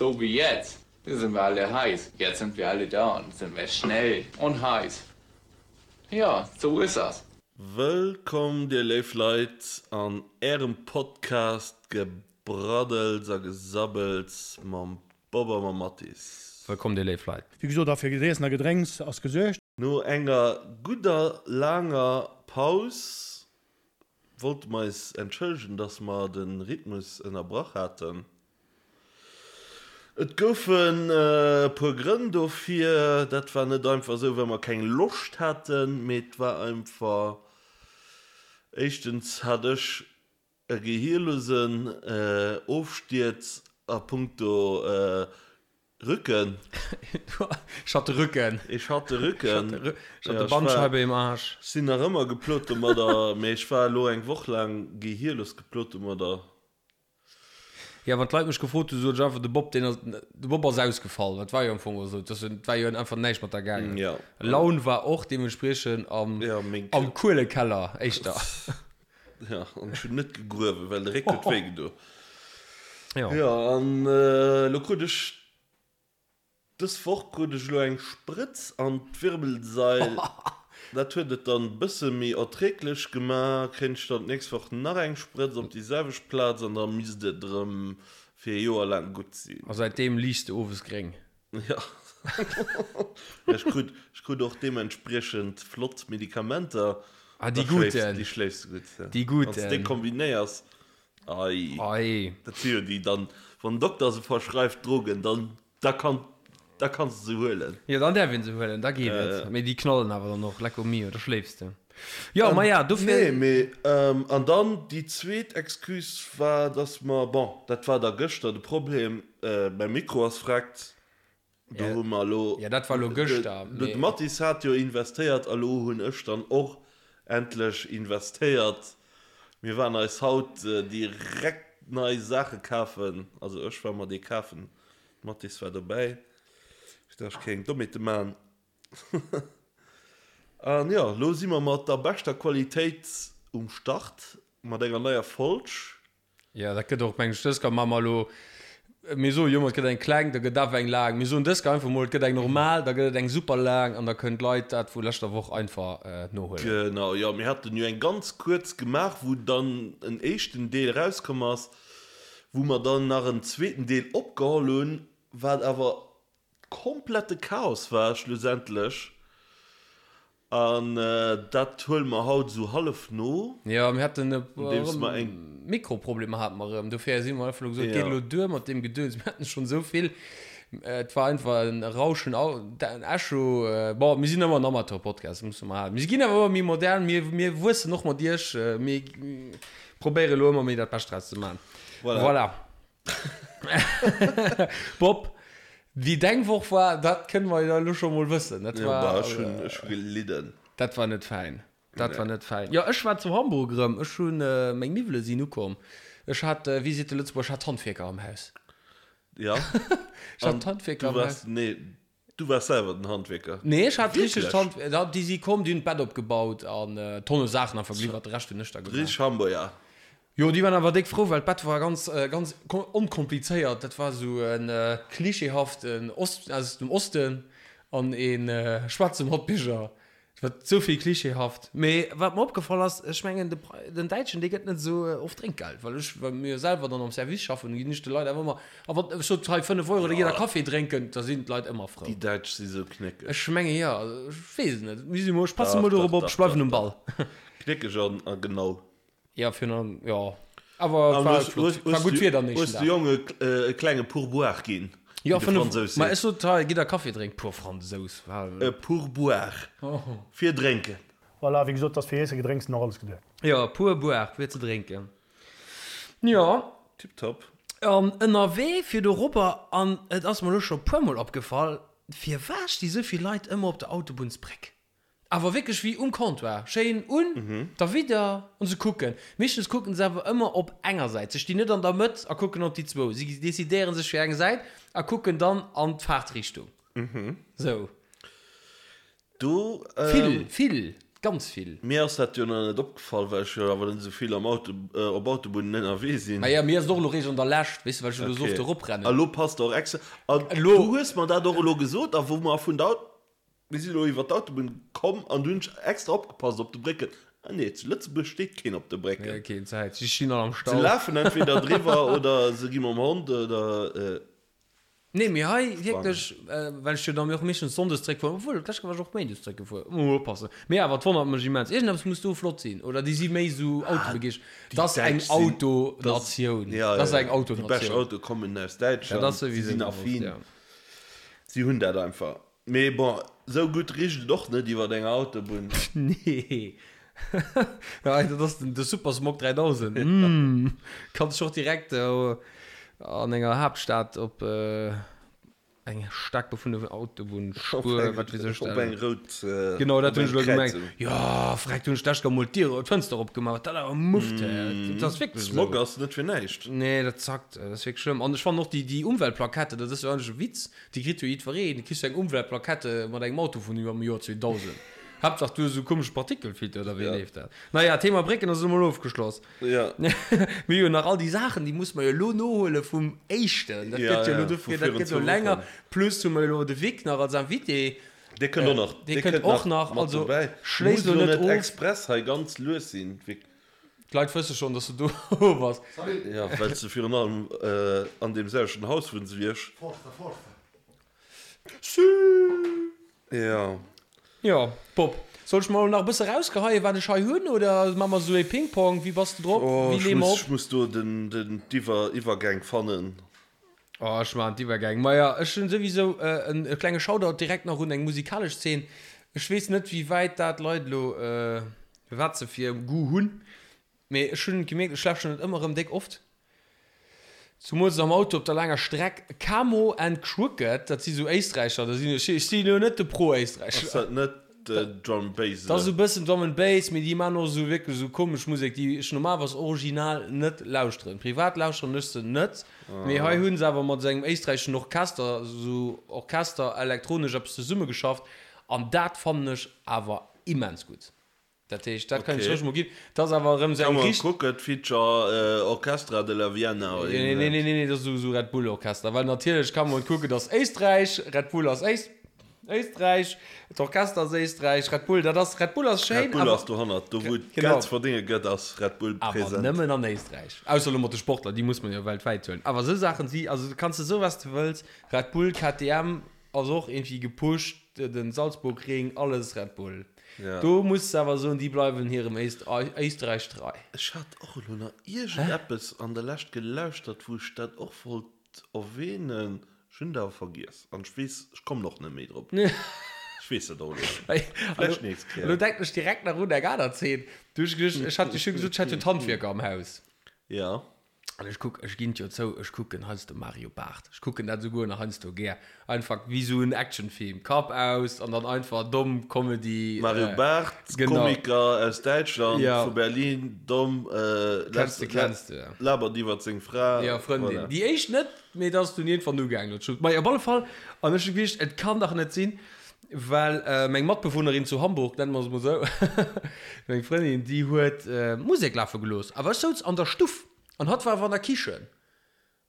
So wie jetzt. Da sind wir alle heiß. Jetzt sind wir alle da und sind wir schnell und heiß. Ja, so ist das. Wëllkomm dir léif Leit an ärem Podcast Gebraddels a Gesabbels mam Bob a mam Mathis. Wëllkomm dir léif Leit. Wéi gesot, a fir Iessen a Gedrénks ass gesuergt. No enger gudder laanger Paus wollte mer eis entschëllegen, dass mer de Rhythmus ënnerbrach haten. Et goufen e puer Grënn dofir. Dat war net einfach esou, well mer keng Loscht haten, mee et war einfach, éischtens hat ech e gehierlosen Ofstierz a punkto Rücken. Ech hat de Rücken. Ech hat de Rücken. Ech hat de Bandscheibe im Arsch. Ech sinn nach ëmmer geplot domadder, mee ech war elo eng Woch laang gehierlos geplot domadder. Jo, wann d'Leit mech gefrot hunn, sot ech einfach, de Bob, deen ass, de Bob ass ausgefall. Dat war jo am Fong och esou. Et war jo einfach näischt mat der gaangen. Jo. Laun war och deementspriechend am, am Kuelekeller éischter. Jo, an ech hunn net gegruewen, well de Réck huet wéi gedo. Jo. Jo, an elo krut ech Dës Woch krut ech elo eng Sprëtz an d'Wirbelsail. Dat huet et dann bësse méi erträglech gema. Kréien ech dann d'nächst Woch nach eng Sprëtz op déi selwecht Plaz an da misst et erëm fir e Joer laang gutt sinn. A säitdeem liichs de owes gréng. Jo. Ech krut, ech krut och deementspriechend flott Medikamenter. Ah, déi guten. Déi schléifs de gutt. Déi guten. Wann s de déi kombinéiers. Ei. Ei. Dat si jo déi dann, wann den Dokter se verschreift, Drogen, dann, da kann, da kanns de se huelen. Jo, dann däerf een se huelen, da geet et. Mee déi knallen awer dann och, lecco mio, da schléifs de. Jo, maja, dofir. Nee, mee, an dann déi zweet Excuse war, dass mer, bon, dat war da gëschter de Problem, mäi Mikro ass vreckt. Do hu mer elo. Ja, dat war elo gëschter. De Mathis hat jo investéiert a lo hunn ech dann och endlech investéiert. Mir waren eis haut direkt nei Saache kafen. Also ech war mer déi kafen, de Mathis war dobäi, fir dass ech keng Dommheete man. An jo, lo si mer mat der beschter Qualitéit um Start mat enger neier Folg. Jo, dat gëtt och, mengen ech, dës Kéier maache mer elo, mir soe jo ëmmer, et gëtt eng kleng, da gëtt awer eng laang. Mir soen dës Kéier einfach mol, et gëtt eng normal, da gëtt et eng super laang an da kënnen d'Leit dat vu leschter Woch einfach nohuelen. Genau, jo, mir haten jo eng ganz kuerz gemaach, wou dann en éischten Deel erauskomm ass, wou mer dann nach en zweeten Deel opgeholl hunn, wat awer komplette Chaos war schlussendlech. An dat huele mer haut esou hallef no. Jo, mir haten e puer Mikroproblemer hate mer erëm. Dofir si mer einfach elo gesot, et geet elo duer mat deem Gedöns. Mir haten schonn esou vill. Et war einfach en Rauschen, en Echo. Bon, mir sinn ëmmer en Amateur-Podcast, dat musse mer halen. Mir ginn awer ëmmer méi modern, mir, mir wuessen och mat iech. Mir probéiere elo ëmmer méi dat Bescht draus ze maachen. Voilà. Bob, wéi deng Woch war, dat kënne mer jo elo scho mol wëssen. Dat Ja, war, bah, ech hunn, ech hu gelidden. dat war net fäin. Dat war Nee. net fäin. Jo, ech war zu Hamburg erëm. Ech hunn, meng Miwwele sinn ukomm. Ech hat, wéi seet de Lëtzebuerger, ech hat d'Handwierker am Haus. Ja. Ech hat An d'Handwierker du am Haus. waars, nee, du waars selwer den Handwierker. Nee, ech hat richteg Wierklech? d'Hand, da, déi si komm, déi hunn d'Bett opgebaut an Tonne Saachen einfach geliwwert, de Rescht hunn ech da gemaach. Richteg Hamburger. Jo, déi waren awer déck frou, well d'Bett war ganz, ganz onkomplizéiert. Dat war esou e klischeehaften Ost, aus dem Osten an ee schwaarze Matbierger. Et war esou vill klischeehaft. Mee wat mer opgefall ass, ech mengen, de, den Däitschen, dee gëtt net esou oft Drénkgeld, well ech, well mir jo selwer dann am Service schaffen, ginn ech de Leit awer ëmmer, a wann ech sot, hei 5 Euro, da gitt der Kaffi drénken, da sinn d'Leit ëmmer frou. Déi Däitsch si sou knéckeg. Ech menge jo, ech weess et net. Mir si mol, ech passe Dach, mol dach, dorop op, dach, ech bleiwen dach, um Ball. dach. Knéckeg an, a genau. Ja, virun allem, jo. Awer et war flott. War gutt Wieder am nächsten Hues Dag. de Jonge e klenge Pourboire ginn, Jo, wéi de 5, Fransous ma seet. ech sot, hei, gitt der Kaffi drénken. Puer Fransous, war. E Pourboire fir drénken. Voilà, wéi gesot, 't ass fir Iesse, Gedrénks an och alles geduecht. Jo, Pourboire fir ze drénken. Jo. Tiptop. An ënnerwee fir dorobber, an et ass mer elo scho puermol opgefall, firwat sti sou vill Leit ëmmer op der Autobunnsbréck? Awer wierklech wéi um Comptoir, schéin un der Widder an se kucken. Meeschtens kucken se awer ëmmer op enger Säit. Se stinn net an der Mëtt a kucken op déi zwou. Si decidéieren sech fir eng Säit a kucken dann an d'Faartrichtung. Sou. Do. Vill, vill. Ganz vill. Mir ass dat jo nach net opgefall, well ech jo awer net esou vill am Auto, op Autobunnen ënnerwee sinn. Maja, mir ass et och elo réischt an der Lescht, weess de, well ech elo esou oft Okay. eroprennen. A lo passt och extra. An Elo. du hues mer dat och elo gesot, a wou mer vun der Aut, mir sinn elo iwwer d'Autobunn komm an du hunn ech extra opgepasst op de Brécken. Ah nee, zu Lëtzebuerg steet keen op de Brécken. Nee, keen Zäit, si stinn all am Se Stau. lafen entweder driwwer oder se gi mam Hond oder. Nee, mee hei wierklech, well ech jo dann och meeschtens sonndes zréckfueren, obwuel d'lescht Kéier war ech och méindes zréckgefuer, muss mol oppassen. Mee awer, et wonnert mech immens. Iergendeppes muss do flott sinn, oder déi si méi esou autobegeeschtert. Dat ass eng Autonatioun. Dat ass eng Déi bescht Autonatioun. Autoe kommen aus Dat Däitschland, ass si souwisou sinn gewosst, affin, ja. si hunn dat einfach. Mee bon, esou gutt richt et och net iwwer enger Autobunn. Nee. Dat ass den de Supersmog 3000. Mm. Kanns dech och direkt an enger Haaptstad op eng staark befunnene Autobunnspuer, wat weess ech, Op eng rout, Genau, dat op hunn ech eng elo gemengt. Kräizung. Jo, freck, do hunn ech d'lescht Kéier mol d'Dier, d'Fënster opgemaach, wat dat awer mufft, hä. Dat ass wierklech esou. Smog ass net fir näischt. Nee, dat zackt, dat ass wierklech schlëmm. An ech fannen och déi, déi Umweltplakette, dat ass jo eigentlech e Witz, déi kritt jo jiddwereen. Du kriss jo eng Umweltplakette mat engem Auto vun iwwer dem Joer 2000. Haaptsaach du hues esou komesch Partikelfilter oder wéi leeft dat? Naja, Thema Brécken ass elo mol ofgeschloss. Ja. Mir hu jo nach all déi Saachen, déi musse mer jo elo nohuele vum éischten. Dat gëtt jo elo dofir, dat gëtt elo länger. Plus hu mer jo elo de Vic nach als Invité. Dee kënnt och nach. Dee kënnt och nach. Mat Also dobäi. schléiss Muss elo elo net net of. express hei ganz lues sinn, Vic. D'Leit wësse schonn, dass du do bass. Ja, well s de virun allem an deem selwechten Haus wunns wéi ech. Forza, forza. Ja. Jo, Bob, soll ech mol nach e bësse rausgeheien, wat ech hei hunn, oder maache mer esou ee Ping-Pong? Wéi bass de drop? Oh, Wéi ech leeë mer muss, op? ech muss do den, den, d'Iwwer, Iwwergäng fannen. Oh, ech maachen d'Iwwergäng. Maja, ech hunn souwisou en e klenge Shoutout direkt nach un eng musikalesch Zeen. Ech weess net, wéi wäit dat d'Leit elo, wat se fir Goût hunn, mee ech hunn gemierkt, ech lauschteren et ëmmer erëm déck oft. Zumools am Auto op der laanger Streck. Camo and Krooked, dat si sou Éisträicher, da sinn ech, ech si lo net de Pro-Éisträicher. Ass dat net Drum and Bass? Dat ass esou bëssen Drum and Bass, mee déi maachen och esou wierklech esou komesch Musek, déi ech normalerweis original net lauschteren. Privat lauschteren ech se net, mee hei hu se awer mat esou engem éisträicheschen Orchester, esou Orchester elektronesch eppes zesummegeschafft an dat fannen ech awer immens gutt. Dat heescht, dat kann ech Okay. roueg mol ginn. Dat ass awer erëm esou Kann eng man richt. kucken, Feature Orchestra de la Vienna oder Nee, nee, nee, nee, nee, dat ass esou esou Red Bull Orchester. Well natierlech kann man kucken, dass Éisträich, Red Bull ass Éist, Éisträich, d'Orchester ass Éisträich, Red Bull, dat ass, Red Bull ass schéin, Red Bull awer, ass dohannert, do wou et Genau. Geld ze verdénge gëtt, ass Red Bull awer present. nëmmen an Éisträich. Ausser elo mat de Sportler, déi muss man jo weltwäit huelen. Awer esou Saachen si, also du kanns de soe wat s de wëlls, Red Bull, KTM ass och iergendwéi gepusht, den Salzburgring, alles Red Bull. Ja. Do muss de awer soen, déi bleiwen hirem Éisträich trei. Ech hat och elo nach iergendeppes an der Lescht gelauschtert, wou ech dat och wollt erwähnen. Ech hunn et awer vergiess an ech weess, ech kommen och net méi drop. Ech weess et och elo net. Vläicht nächst Kéier. Elo denken ech direkt nach un eng aner Zeen. Du hues geduecht, ech hat jo scho gesot, ech hätt jo d'Handwierker am Haus. Ja. An ech kuck, ech ginn et jo zou, ech kucken heiansdo Mario Barth. Ech kucken dat esouguer nach heiansdo gär. Einfach wéi esou en Actionfilm, Kapp aus an dann einfach domm Comedy. Mario Barth, genau. Komiker aus Däitschland, Ja. vu Berlin, domm, Kenns de, kenns de, ja. labert iwwert seng Fra. Ja, Frëndin. Voilà. Déi éischt net, mee dat ass dunn iergendwann ugaangen. Dat scho, Majo, op alle Fall. An ech hu geduecht, et kann dach net sinn, well meng Matbewunnerin zu Hamburg, nenne mer se mol esou, meng Frëndin, déi huet Musek lafe gelooss, awer ech souz an der Stuff an hatt war awer an der Kichen.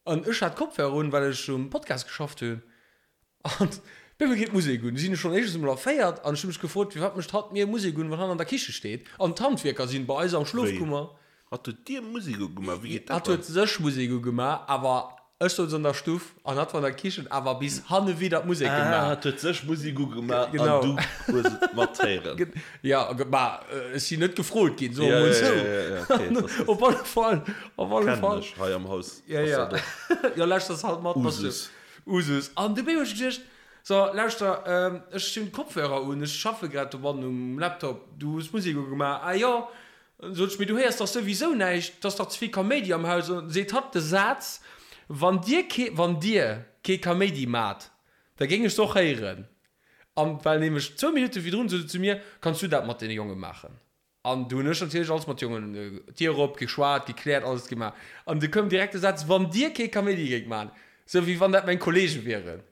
An ech hat Kopfhörer un, well ech um Podcast geschafft hunn. An op eemol geet d'Musek un. Du sinn ech schonn éischtens emol erféiert an ech hu mech gefrot, firwat mécht hatt mir Musek un, wann hatt an der Kiche steet an d'Handwierker sinn bei eis am Wéi? Schlofkummer. Hatt huet dir Musek ugemaach? Wéi geet dat Hatt huet dann? sech Musek ugemaach, awer ech souz an der Stuff an hatt war an der Kichen, awer bis hanne widder d'Musek Ah, gemaach. hatt huet sech Musek ugemaach an Genau. du hues et matheeren. Ja, ma ech sinn net gefrot ginn, soe Ja, mer mol ja, esou. ja, ja, ja, okay, das ist- Op alle Fall, op alle Kennen Fall. ech hei am Haus. Ja, ass ja. dat och Ja, lauschters halt mat, bass du. Usus. Usus. An du hu ech geduecht, so, lauschter, ech hunn d'Kopfhörer un, ech schaffe grad dobannen um Laptop, du hues Musek ugemaach, ah jo. An sot ech, mee du héiers dach souwisou näischt, 't ass dach ze vill Kaméidi am Haus. An seet hatt de Saz, Wann dir kee, wann dir kee Kaméidi maacht, da géing ech se och héieren. An well nämlech zwou Minutte virdrun sot se zu mir, Kanns du dat mat deene Jonge maachen? An du hunn ech natierlech alles mat Jongen, d'Dier op, geschwat, gekläert, alles gemaach. An du koum direkt de Saz, Wann dir kee Kaméidi géingt maachen, sou wéi wann dat meng Kollege wieren.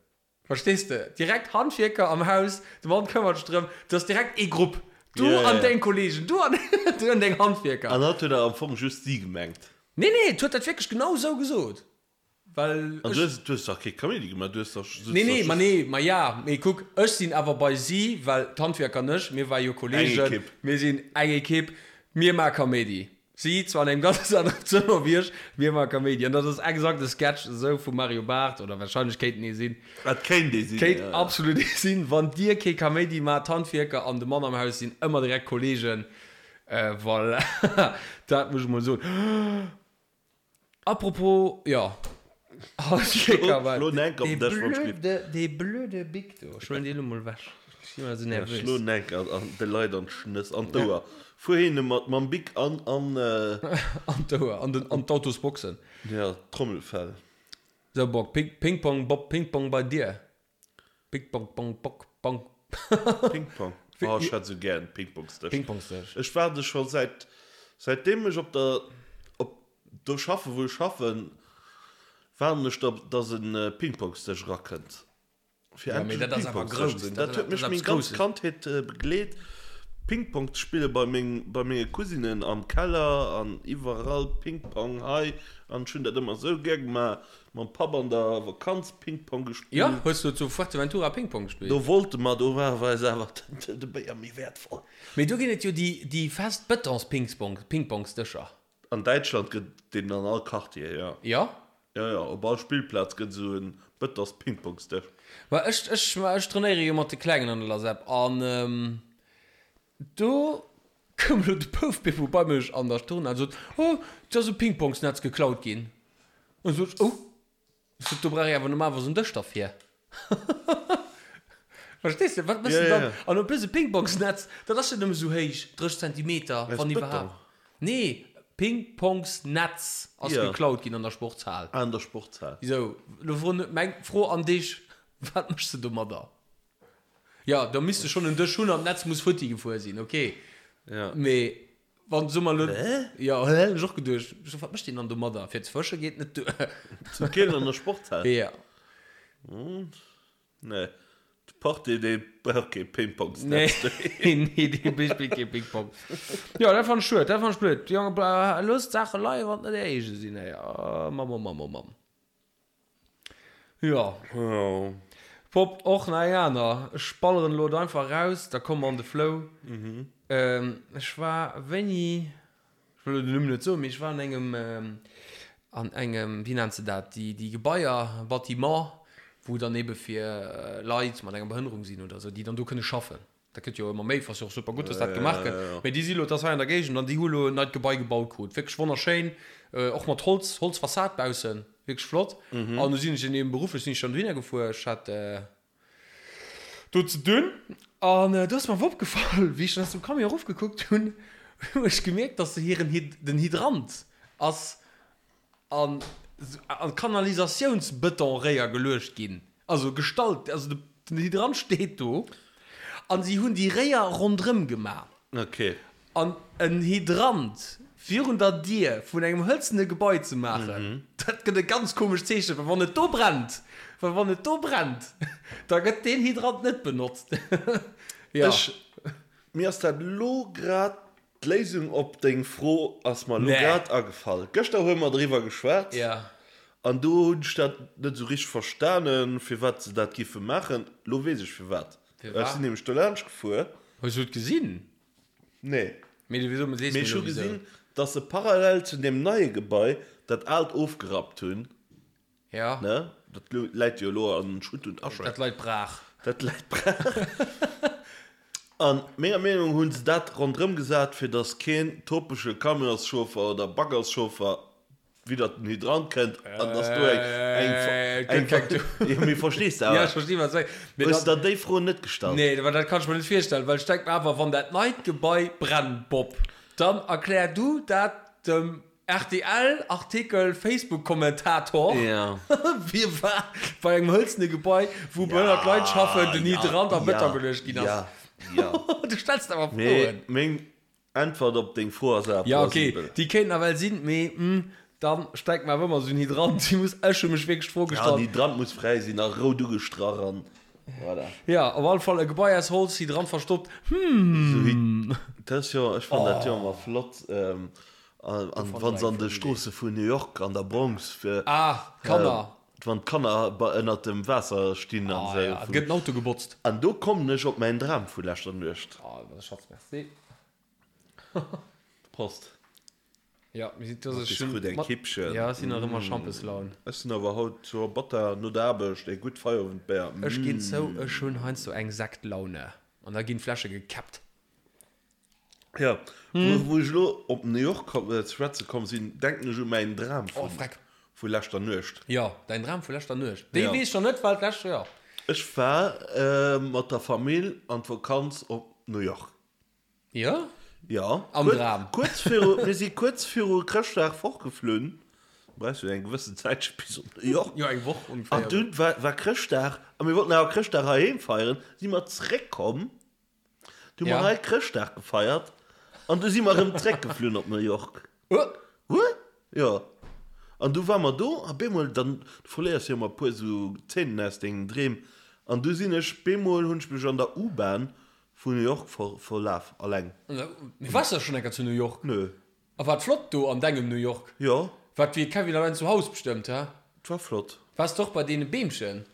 Verstees de? Direkt Handwierker am Haus, de Mann këmmert sech drëm, et ass direkt ee Grupp. Du Ja, ja, an ja. deng Kollegen, du an, du an deng Handwierker. An hatt huet awer am Fong just si gemengt. Nee, nee, et huet dat wierklech genau esou gesot. Well An ech. du hues, du hues dach kee Kaméidi gemaach, du hues dach, sutz Nee, dach nee, ma just. nee, ma ja, mee kuck, ech sinn awer bei si, well d'Handwierker an ech, mir ware jo Eng Kollegen, Ekipp. mir sinn eng Ekipp, mir maache Kaméidi. Si zwar an engem ganz aneren Zëmmer wéi ech, mir maache Kaméidi. An dat ass exakt e Sketch esou vum Mario Barth, oder wahrscheinlech kéint en ee sinn. Et kéint ee sinn, Kéint ja. absolut ee sinn. Wann dir kee Kaméidi maacht, d'Handwierker an de Mann am Haus sinn ëmmer direkt Kollegen. Voilà, dat muss ech mol soen. Apropos, jo, Schlo enk op den Dësch mam Schlitt. Dee blöde Bic do, ech huelen dee lo mol ewech, ech sinn ëmmer esou nervös. Schlo enk an de Leit an d'Schnëss, an d'Ouer. Fuer hinne mat mam Bic an, an. An d'Ouer, an den, an d'Autosboxen. Jo, d'Trommelfell. Sou, Bock, Ping-Pong, Bob, Ping-Pong bei dir. Ping Pong Pong Pok Pong. Ping Pong. Oh, ech hätt sou gär en Pingpongsdësch. Pingpongsdësch. Ech waarde scho säit säitdeem ech op der op do schaffen wou ech schaffen, waarden ech drop dass en Pingpongsdësch erakënnt fir Ja, mee endlech dat ass awer Pingpongsdësch grouss. ze hunn. Dat Dat huet dat mech ass meng eppes ganz Grousses. Kandheet begleet. Pingpong ze spille bei meng bei menge Cousinen am Keller an iwwerall Pingpong hei an ech hunn dat ëmmer sou gär gemaach. Mam Papp an der Vakanz Pingpong gespillt. Jo, hues du zu Fuerteventura Pingpong gespillt? Do wollte mer, do war eis awer de Béier méi wäertvoll. Mee do ginn et jo déi déi fest Betons-Pingpong-Pingpongsdëscher. An Däitschland gëtt et deen an all Quartier, jo. Jo? Jo, jo, op all Spillplaz gëtt esou en Betons-Pingpongsdësch. Ma ech ech ma ech trainéiere jo mat de Klengen an der LASEP an do koum elo de Bouf Beppo bei mech an der Turnhal an sot, Oh, et ass e Pingpongsnetz geklaut ginn. An sot ech, Oh, ech sot, do brauch ee awer normalerweis en Dësch derfir. Verstees de? Wat méchs de dann? An en plus e Pingpongsnetz, dat ass jo nëmme sou héich, 30 Zentimeter, wann iwwerhaapt. Nee, Pingpongsnetz ass geklaut ginn an der Sportshal. Ah, an der Sportshal. Sou, lo froen, meng Fro an dech, Wat méchs de domadder? Jo, da misst de schonn en Dësch hunn an d'Netz muss futti gefuer sinn, ok. Mee Wann soe mer elo. Hä? Jo, hä? Hunn ech och geduecht. Ech so, wat mécht deen dann domadder? Fir ze fësche geet net duer. Zu Köln an der Sportshal? Ja. Nee, de Portier, dee brauch kee Pingpongsnetz. Nee, nee, dee spillt kee Pingpong. Jo, dat fannt ech schued, dat fannt ech blöd. Jonge, loosst d'Saache leien, wann et net är eege sinn, ey. Oh Mamm, oh Mamm, oh Mamm. Jo. Pop, och nach eng aner. Ech balleren elo et einfach raus, da komme mer an de Flow. Ech war wéini, ech wëll elo den Numm net soen, mee ech war an engem, an engem, wéi nennt se dat, déi, déi Gebaier, Bâtiment, wou dann ebe fir Leit mat enger Behënnerung sinn oder esou, déi dann do kënne schaffen. Dat gëtt jo ëmmer méi, ass jo och super gutt, dass dat gemaach gëtt. Mee déi si lo, dat ass hei an der Géigend, an déi hu lo en neit Gebai gebaut krut. Wierklech wonnerschéin, och mat Holz, Holzfassad baussen, wierklech flott. An du sinn ech eben berufflech sinn ech dann dohinner gefuer, ech hat do ze dunn. An do ass mer awer opgefall, wéi ech dann aus dem Camion erofgekuckt hunn, hu ech gemierkt, dass se hiren, den Hydrant ass an an Kanalisatiounsbetonréier geluecht ginn, also gestallt, also den Hydrant steet do an si hunn déi Réier ronderëm gemaach. Ok. An en Hydrant virun der Dier vun engem hëlzene Gebai ze maachen, dat gëtt e ganz komescht Zeechen, well wann et do brennt, well wann et do brennt, da gëtt deen Hydrant net benotzt. Jo. Ech, mir ass dat elo grad D'Léisung op deng Fro ass mer elo grad agefall. Gëschter hu mer driwwer geschwat an do hunn ech dat net esou richteg verstanen, firwat se dat giffe maachen. Elo weess ech firwat. Ech sinn nämlech do laanscht gefuer. Hues du et gesinn? Nee. Mee ech hu gesinn, dass se parallel zu deem neie Gebai dat aalt ofgerappt hunn. Ja. Ne? Dat läit jo elo an Schutt und Asche. Dat leit brach. Dat läit brach. An menger Meenung hunn se dat ronderëm gesat, fir datt keen topege Camionschauffer oder Baggerschauffer widder den Hydrant kënnt an datt do eng, eng, eng, eng, jo, mee verstees de awer? Ja, ech versti wat s de sees. Hues der déi Fro net gestallt? Nee, well dat kann ech mer net virstellen, well ech denk mer awer, wann dat neit Gebai brennt, Bob, dann erklär du dat dem Rtl Artikel Facebook Kommentator Wie war bei engem hëlzene Gebai wou behënnert Leit schaffen den Hydrant a Bëtong geluecht ginn ass? Du stells der awer Froen. Meng Äntwert op deng Fro ass awer Ja ok, plausibel. déi kéint nawell sinn, mee dann stellt mer awer ëmmer esou en Hydrant. Déi muss, ech hu mech wierklech d'Fro Ja, gestallt. den Hydrant muss fräi sinn a rout ugestrach an. Voilà. Ja, op alle Fall e Gebai aus Holz, si dran verstoppt. Hm. Dat ass jo, ech fannen dat jo ëmmer flott, an wann se an de Stroosse vun New York an der Bronx fir. Ah, d'Kanner. Wann d'Kanner ënnert dem Waasser stinn an esou. Ah ja, et gëtt en Auto gebotzt. An do kommen ech op mäin Dram vu leschter Nuecht. Ah, dat ass Schatz, merci. Prost. Ja, mir sinn, das ist schon, krut eng Kippchen. Ja, ech sinn nach ëmmer Schampeslaun. Ech sinn awer haut zur Batta no der Aarbecht e gutt Feierowendbéier. Ech ginn zou, ech hunn heiansdo eng Sektlaune an da ginn d'Fläsche gekäppt. Ja, wou ech elo op New York ze schwätze komm sinn, denken ech u mäin Dram vu leschter Nuecht. Jo, däin Dram vu leschter Nuecht, dee weess ech nach net, well d'lescht, jo. Ech war mat der Famill an d'Vakanz op New York. Jo? Jo. Am Dram. Kuerz viru, mir si kuerz viru Chrëschtdag fortgeflunn. Du brauchs jo eng gewëssen Zäitche bis op New York. Jo, eng Woch ongeféier. An dunn war, war Chrëschtdag a mir wollten awer Chrëschtdag heiheem feieren. Si mer zréckkomm, du hu mer hei Chrëschtdag gefeiert an du si mer erëm zréckgeflunn op New York. Huh? Huh? Jo. An du war mer do a bemol, dann, du verléiers jo ëmmer e puer esou Zeenen aus dengen Dreem, an du sinn ech, bemol hunn ech mech an der U-Bahn Vu New York verlaf, alleng. Mee wars de schon enker zu New York? Nö. A war et flott do an dengem New York? Jo. War et wéi Kevin allein zu Haus bestëmmt, he? Et war flott. Wars de och bei deene Beemchen?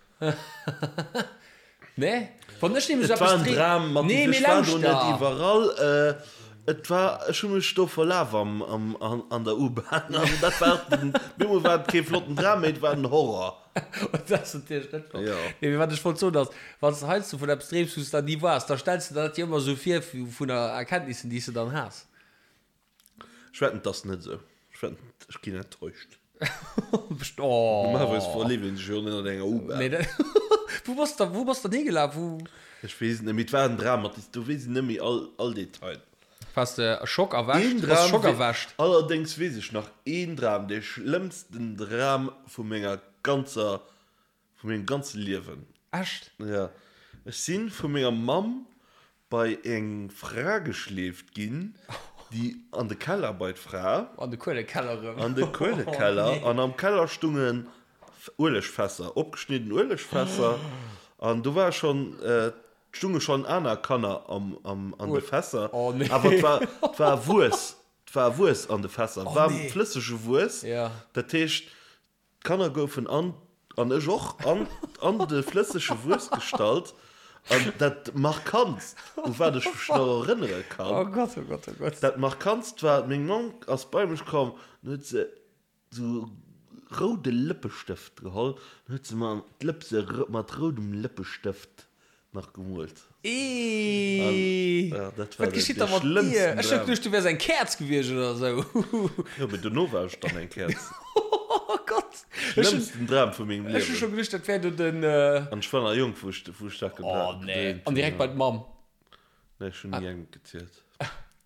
Nee? Wann ech nämlech Et war eppes en dreem. Dram, Mathis, Nee, mee ech war do net lauschter! iwwerall. Et war, ech hu mech do verlaf am, am, an der U-Bahn an dat war den, bemol war et kee flotten Dram méi, et war den Horror. Dat ass natierlech net flott. Jo. Nee, mee wat ech wollt soen ass, wann s de heiansdo vun eppes dreems, wou s de dann ni waars, da stells de der dat jo ëmmer esou vir vun der Erkenntnissen, déi s de dann has. Ech wetten, 't ass net esou. Ech wetten, ech ginn enttäuscht. Best, oh. Normalerweis verleeft een sech jo net an enger U-Bahn. Nee, dat, wou bass de, wou bass de dann higelaf? Wou? Ech weess et net méi. Et war en Dram, Mathis, do weess ech net méi all, all Detail. Waars de Schock erwächt? Een Bass Dram Schock wee, erwächt? allerdéngs weess ech nach een Dram, dee schlëmmsten Dram vu menger ganzer, vu mengem ganze Liewen. Echt? Ja. Ech si vu menger Mamm bei eng Fra geschleeft ginn, déi an de Keller bei d'Fra. An de Kuelekeller erëm. An de Kuelekeller. An am Keller stungen Uelegfässer, opgeschnidden Uelegfässer. An do war schonn Et stunge schonn aner Kanner an de Fässer, awer et war, et war Wuess, et war Wuess an de Fässer, waarm flëssege Wuess. Dat heescht, d'Kanner goufen an, an ech och, an, an de flëssege Wuess gestallt. An dat Markantst, u wat ech mech nach erënnere kann, dat Markantst war, meng Mamm ass bei mech komm an huet se Sou roude Lëppestëft geholl, dann huet se mer d'Lëpse mat roudem Lëppestëft nach gemoolt. Eeii, Ja, dat war wat de, geschitt de da mat dir? schlëmmsten Ech hu Dram. geduecht, du wäers eng Käerz gewiescht oder sou. Jo, mee dono war ech dann eng Käerz. Oh Gott! Ech hunn, Schlëmmsten Dram vu mengem ech hu scho Liewen. geduecht, dat wär do den. An ech war nach jonk, wou ech, wou ech dat Oh gedreemt nee. hunn. An direkt bei d'Mamm. Nee, ech hunn ni engem gezielt.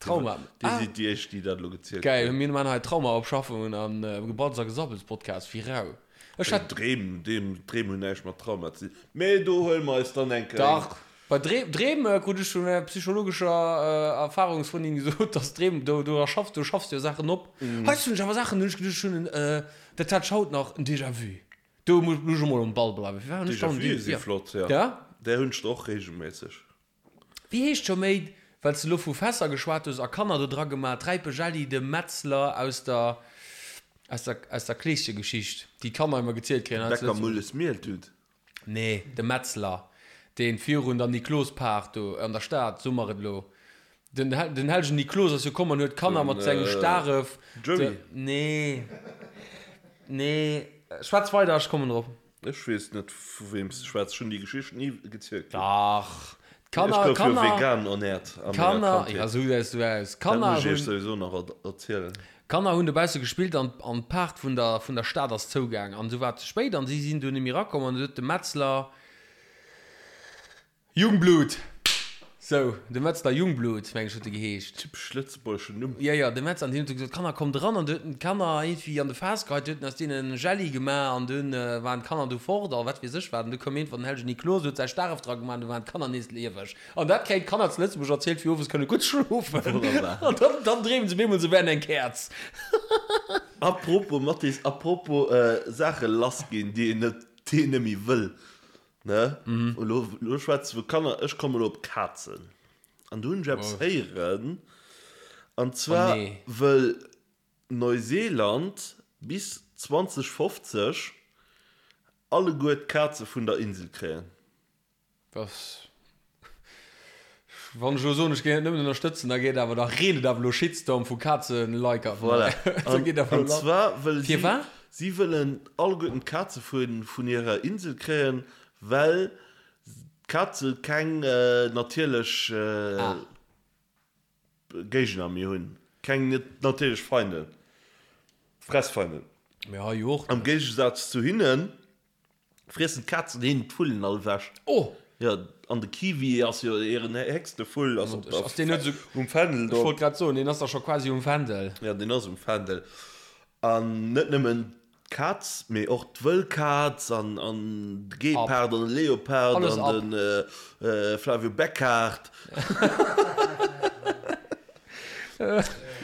Trauma. Dir sidd déi éischt, déi dat elo gezielt Geil, hunn. mir man hei Traumaopschaffungen an Gebatz a Gesabbels Podcast, wéi rau. Ech hat. Dreem, Dreem, Dreem hunn näischt mat Trauma ze dinn. Mee do huele mer eis dann eng Kéier. Dach, bei Dreem, Dreem krut ech vun enger psychologescher Erfahrungsfrëndin gesot, dass Dreem, do, do erschaffs, do schaffs du jo Saachen op. Hei hunn ech awer Saachen, hunn ech geduecht, ech hunn en, dat hat ech haut nach, en Déjà-vu. Do muss ech emol um Ball bleiwen. Firwat hunn ech dann en Déjà-vue si Déjà-vu? flott, jo. Ja? Där hunn ech der och reegelméisseg. Wéi heescht scho méi, well s de elo vu Fässer geschwat hues a Kanner do dra gemaat, Räipe Jelli, de Metzler aus der, aus der, aus der Kleeschegeschicht, déi d'Kanner ëmmer gezielt kréien hei zu Bäcker Lëtzebuerg. Mulles Mieltut. Nee, de Metzler, deen virun der Niklospaart do an der Stad, soe mer et elo, den, den hellegen Niklos ass jo komm an huet d'Kanner mat sengem Staref. Joey. Nee, nee, schwätz weider, ech kommen drop. Ech weess net vu weem s de schwätz, ech hunn déi Geschicht ni gezielt kritt. Dach, Ech d'Kanner, gouf jo Kanner, vegan ernährt a menger Kanner, Kandheet. ja sou gesäis du aus. Dat Kanner muss ech iech hunn, souwisou nach erzielen. Kanner hunn dobausse gespillt an an d'Paart vun der vun der Stad ass zougaang an esou war et ze spéit an si sinn du net méi erakomm an du huet de Metzler Jungblut! Sou, de Metzler Jungblut, meng ech, huet e geheescht. Typesch lëtzebuergeschen Numm. Jo, jo, de Metzler. An deen huet du gesot, Kanner, kommt eran. An du huet en d'Kanner iergendwéi an de Faass geheit, du huet en aus deenen Jelli gemaach an dunn waren d'Kanner du fort a wat weess ech wat. An du koum iergendwann den hellegen Niklos, huet säi Staref dra gemaach an du waren d'Kanner nees lieweg. An dat kréien d'Kanner zu Lëtzebuerg erzielt, fir owes kënne gutt schlofen. Wonnerbar. An dann, dann dreemen se op eemol, se wären eng Käerz. Apropos, Mathis, apropos Saache lassginn, déi een net, déi een net méi wëll. Ne? Elo, elo schwätze vu Kanner, ech kommen elo op Kazen. An do hunn ech eppes héieren, an zwar wëll Neuseeland bis 2050 alleguer d'Kaze vun der Insel kréien. Dass, wann ech elo soen, ech géing et nëmmen ënnerstëtzen, da geet awer, da reent et awer elo Shitstorm vu Kazen-Liker. Voilà. Da geet awer An elo lass. zwar wëlle si, Firwat? si wëllen alleguerten d'Kaze vun, vun hirer Insel kréien, well d'Kaze keng natierlech Ah. Géigner méi hunn, keng natierlech Feinden, Fressfeinden. Mee hei jo och Am net. Géigesaz zu hinnen Friessen d'Kazen hinnen d'Vullen all ewech? Oh! Jo, an de Kiwi ass jo hiren héchste Vull, ass op der, Ass deen net esou, um Fändel ech do. wollt grad soen, deen ass da scho quasi um Fändel. Jo, deen ass um Fändel. An net nëmmen d'Kaz, mee och d'Wëllkaz an, an de Gepard an de Leopard Alles an ab. de Flavio Beckhard.